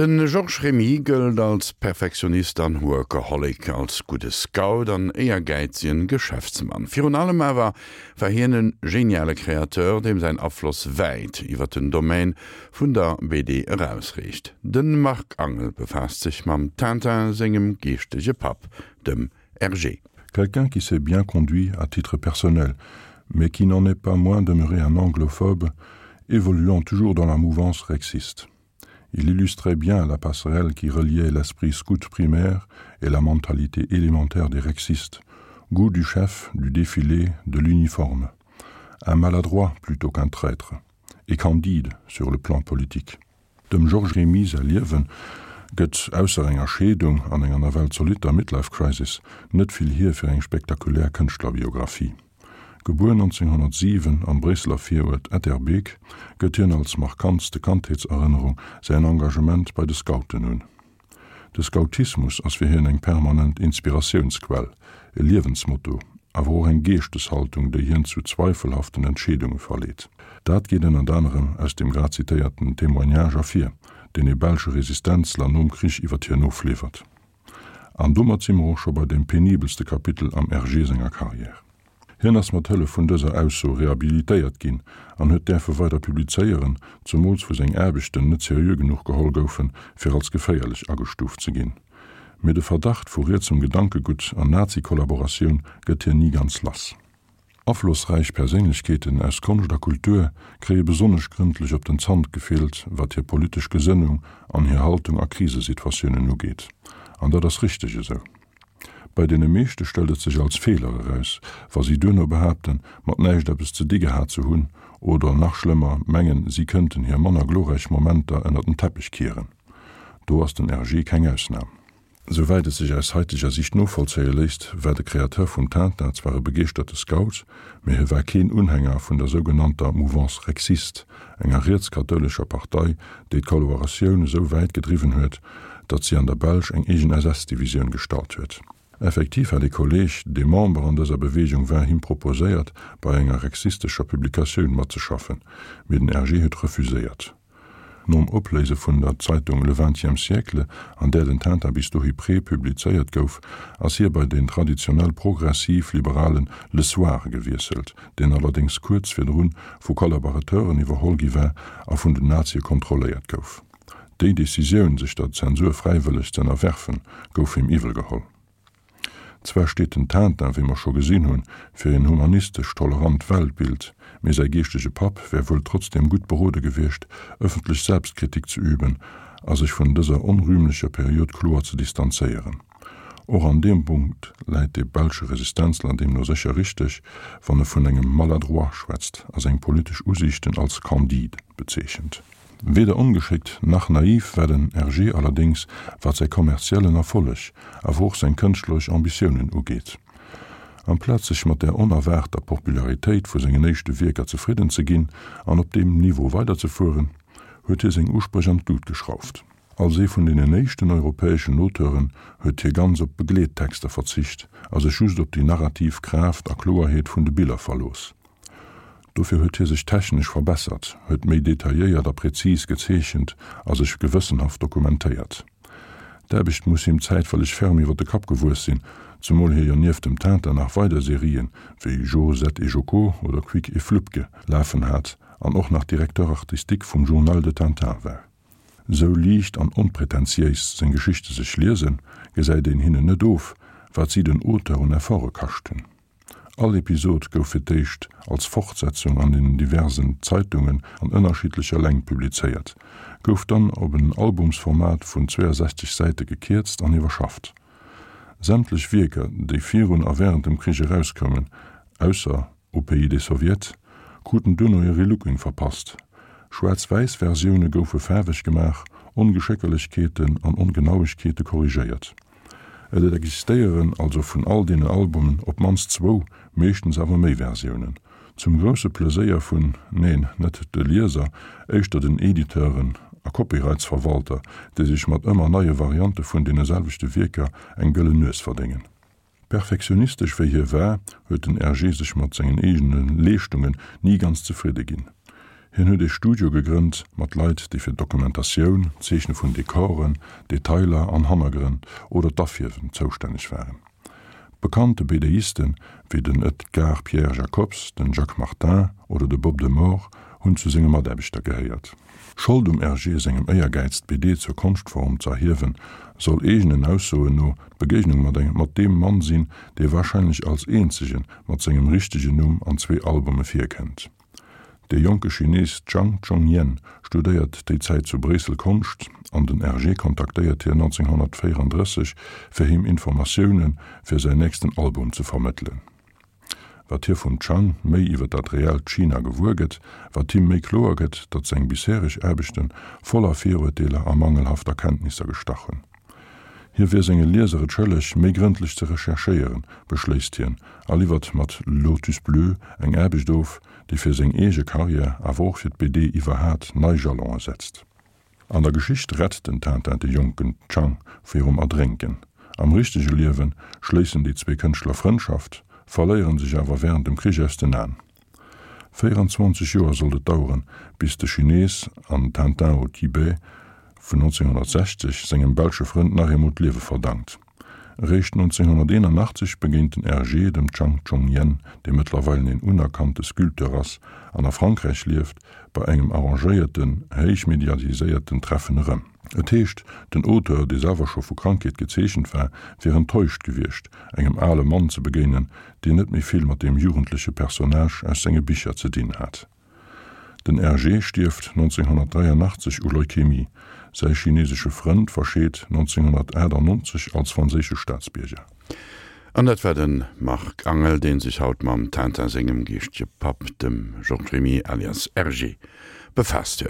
De Georges Remy gëllt als Perfektionist an Workaholic, als gudde Scout an éiergäizegen Geschäftsmann. Virun allem awer war hien e geniale Kreateur, deem säin Afloss wäit iwwer den Domaine vun der BD erausreecht. De Marc Angel befaasst sech mam Tintin sengem geeschtege Papp, dem Hergé. Quelqu'un qui s'est bien conduit à titre personnel, mais qui n'en est pas moins demeuré un anglophobe, évoluant toujours dans la mouvance rexiste. Il illustrait bien la passerelle qui reliait l'esprit scout primaire et la mentalité élémentaire des rexistes, goût du chef, du défilé, de l'uniforme. Un maladroit plutôt qu'un traître, et candide sur le plan politique. Dem Georges Remy säi Liewe gëtt, ausser enger Scheedung an enger nawell zolitter Midlife Crisis, net vill hier fir eng spektakulär Kënschtlerbiographie. Gebuer 1907 am Bréisseler Viruert Etterbeek, gëtt hien als markantste Kandheetserënnerung säin Engagement bei de Scouten un. De Scoutismus ass fir hien eng permanent Inspiratiounsquell, e Liewensmotto, awer och eng Geeschteshaltung, déi hien zu zweifelhaften Entscheedunge verleet. Dat geet ënnert anerem aus dem grad zitéierten Témoignage ervir, deen e belsche Resistenzler nom Krich iwwer hien ofliwwert. An domat si mer och scho bei deem penibelste Kapitel am Hergé senger Karriär. Hien ass mat Hëllef vun dëser Ausso rehabilitéiert ginn an huet däerfe weider publizéieren, zumools wou seng Aarbechten net seriö genuch geholl goufen, fir als geféierlech agestuuft ze ginn. Mee de Verdacht vu rietsem Gedankegutt an Nazi-Kollaboratioun gëtt hien ni ganz lass. Aflossräich Perséinlechkeeten aus Konscht a Kultur kréie besonnesch grëndlech op den Zant gefillt, wat hir politesch Gesënnung an hir Haltung a Krisesituatiounen ugeet. An dat ass richteg esou. Bei deene meeschte stellt et sech als Feeler eraus, wa si duerno behaapten, mat näischt eppes ze di gehat ze hunn, oder nach schlëmmer, mengen, si kënnten hir manner glorräich Momenter ënner den Teppech kieren. Do ass den RG keng Ausnam. Souwäit et sech aus haiteger Sicht novollzéie léisst, war de Kreateur vum Tintin zwar e begeeschterte Scout, mee hie war keen Unhänger vun der sougenannter Mouvance rexiste, enger rietskathoulescher Partei, déi d'Kollaboratioun esou wäit gedriwwen huet, datt si an der Belsch eng eegen SS-Divisioun gestallt huet. Effektiv hat ee Kolleeg, dee Member an dëser Beweegung war, him proposéiert, bei enger rexistescher Publikatioun matzeschaffen, mee den Hergé huet refuséiert. Nom Opléise vun der Zeitung Le Vingtième siècle, an där den Tintin bis dohi prepublizéiert gouf, ass hie bei den traditionell progressiv-liberale Le Soir gewiesselt, deen allerdéngs kuerz virdrun vu Kollaborateuren iwwerholl gi war a vun den Nazie kontrolléiert gouf. Déi Decisioun, sech der Zensur fräiwëlleg z'ënnerwerfen, gouf him iwwelgeholl. Zwar steet den Tintin, wéi mer scho gesinn hunn, fir een humanistesch tolerant Weltbild, mee säi geeschtege Papp wär wuel trotzdeem gutt berode gewiescht, ëffentlech Selbstkritik ze üben a sech vun dëser onrühmlecher Period kloer ze distanzéieren. Och an deem Punkt läit de belsche Resistenzler deemno sécher richteg, wann e vun engem Maladroit schwätzt a seng politesch Usiichten als candide bezeechent. Weder ongeschéckt nach naiv war den Hergé allerdéngs, wat säi kommerziellen Erfolleg, awer och seng kënschtleresch Ambitiounen ugeet. Amplaz sech mat der onerwaarter Popularitéit vu sengen éischte Wierker zefridden ze ginn an op deem Niveau weiderzefueren, huet hie seng Uspréch an d'Lut geschrauft. Als ee vun deenen éischten europäeschen Auteuren huet hie ganz op Begleettexter verzicht a sech just op déi narrativ Kraaft a Kloerheet vun de Biller verlooss. Dofir huet hie sech technesch verbessert, huet méi detailléiert a präzis gezeechent a sech gewëssenhaft dokumentéiert. D'Aarbecht muss him zäitweileg ferm iwwer de Kapp gewuess sinn, zemol hie jo nieft dem Tintin nach weider Serien, wéi Jo, Zet et Joko oder Quick et Flupke lafen hat an och nach Directeur artistique vum Journal de Tintin war. Sou liicht an onpretentiéis seng Geschichte sech liesen, gesäit een hinnen net of, wat si den Auteur un Efforte kascht hunn. All Episod gouf fir d'éischt als Fortsetzung an den diversen Zeitungen an ënnerschiddlecher Längt publizéiert, gouf dann op en Albumsformat vun 62 Säite gekierzt an iwwerschafft. Sämtlech Wierker, déi virun a wärend dem Krich erauskoumen, ausser Au pays des Soviets, kruten duerno e Relooking verpasst. Schwaarz-wäiss-Versioune goufe faarweg gemaach, Ongeschéckerlechkeeten an Ongenauegkeete korrigéiert. Et existéieren also vun all deenen Albumen op d'mannst zwou, meeschtens awer méi Versiounen. Zum grousse Pleséier vun, neen, net de Lieser, éischter den Editeuren a Copyrightsverwalter, déi sech mat ëmmer neie Variante vun deene selwechte Wierker eng gëllen Nues verdéngen. Perfektionistesch wéi hie war, huet den Hergé sech mat sengen eegene Leeschtungen ni ganz zefridde ginn. Hien huet ee Studio gegrënnt mat Leit, déi fir d'Dokumentatioun, d'Zeechne vun Dekoren, Detailer an Hannergrënn oder d'Afierwen zoustänneg waren. Bekannte BDisten wéi den Edgar Pierre Jacobs, den Jacques Martin oder de Bob de Moor hunn zu senge Mataarbechter gehéiert. Schold um Hergé sengem Éiergäiz d'BD zur Konschtform z'erhiewen, soll eegenen Aussoen no d'Begéignung mat engem mat deem Mann sinn, dee warscheinlech als eenzege mat sengem richtegen Numm an zwee Albume virkënnt. De jonke Chines Zhang Zhongyan studéiert déi Zäit zu Bréissel Konscht an den Hergé kontaktéiert hien 1934 fir him Informatioune fir säin nächsten Album ze vermëttelen. Wat hie vum Zhang méi iwwer dat reellt China gewuer gëtt, wat him méi kloer gëtt, datt seng bishereg Aarbechte voller Viruerteeler a mangelhafter Kenntnisser gestach hunn. Hie wier senge Lieser et schëlleg, méi grëndlech ze recherchéieren, beschléisst hien a liwwert mat Lotus Bleu eng Aarbecht of, déi fir seng eege Karriär, awer och fir d'BD iwwerhat nei Jalonë setzt. An der Geschicht rett den Tintin de jonken Chang virum Erdrénken. Am richtege Liewe schléissen déi zwee Kënschtler Frëndschaft, verléiere sech awer wärend dem Krich aus den Aen. 24 Joer sollt et daueren, bis de Chines an Tintin au Tibet vun 1960 sengem belsche Frënd nach eemol d'Liewe verdankt. Eréischt 1981 begéint den Hergé dem Chang Chong-yen, dee mëttlerweilen een unerkannte Sculpteur ass an a Frankräich lieft, bei engem arrangéierten, héich mediatiséierten Treffen erëm. Et heescht, den Auteur, dee selwer scho vu Krankheet gezeechent war, wier enttäuscht gewiescht, engem ale Mann ze begéinen, deen net méi vill mat deem jugendleche Personnage aus senge Bicher ze dinn hat. Den Hergé stierft 1983 u Leukämie, säi chinesesche Frënd verscheet 1998 als franséische Staatsbierger. An dat war de Marc Angel, dee sech haut mam Tintin sengem geeschtege Papp, dem Georges Remy alias Hergé, befaasst huet.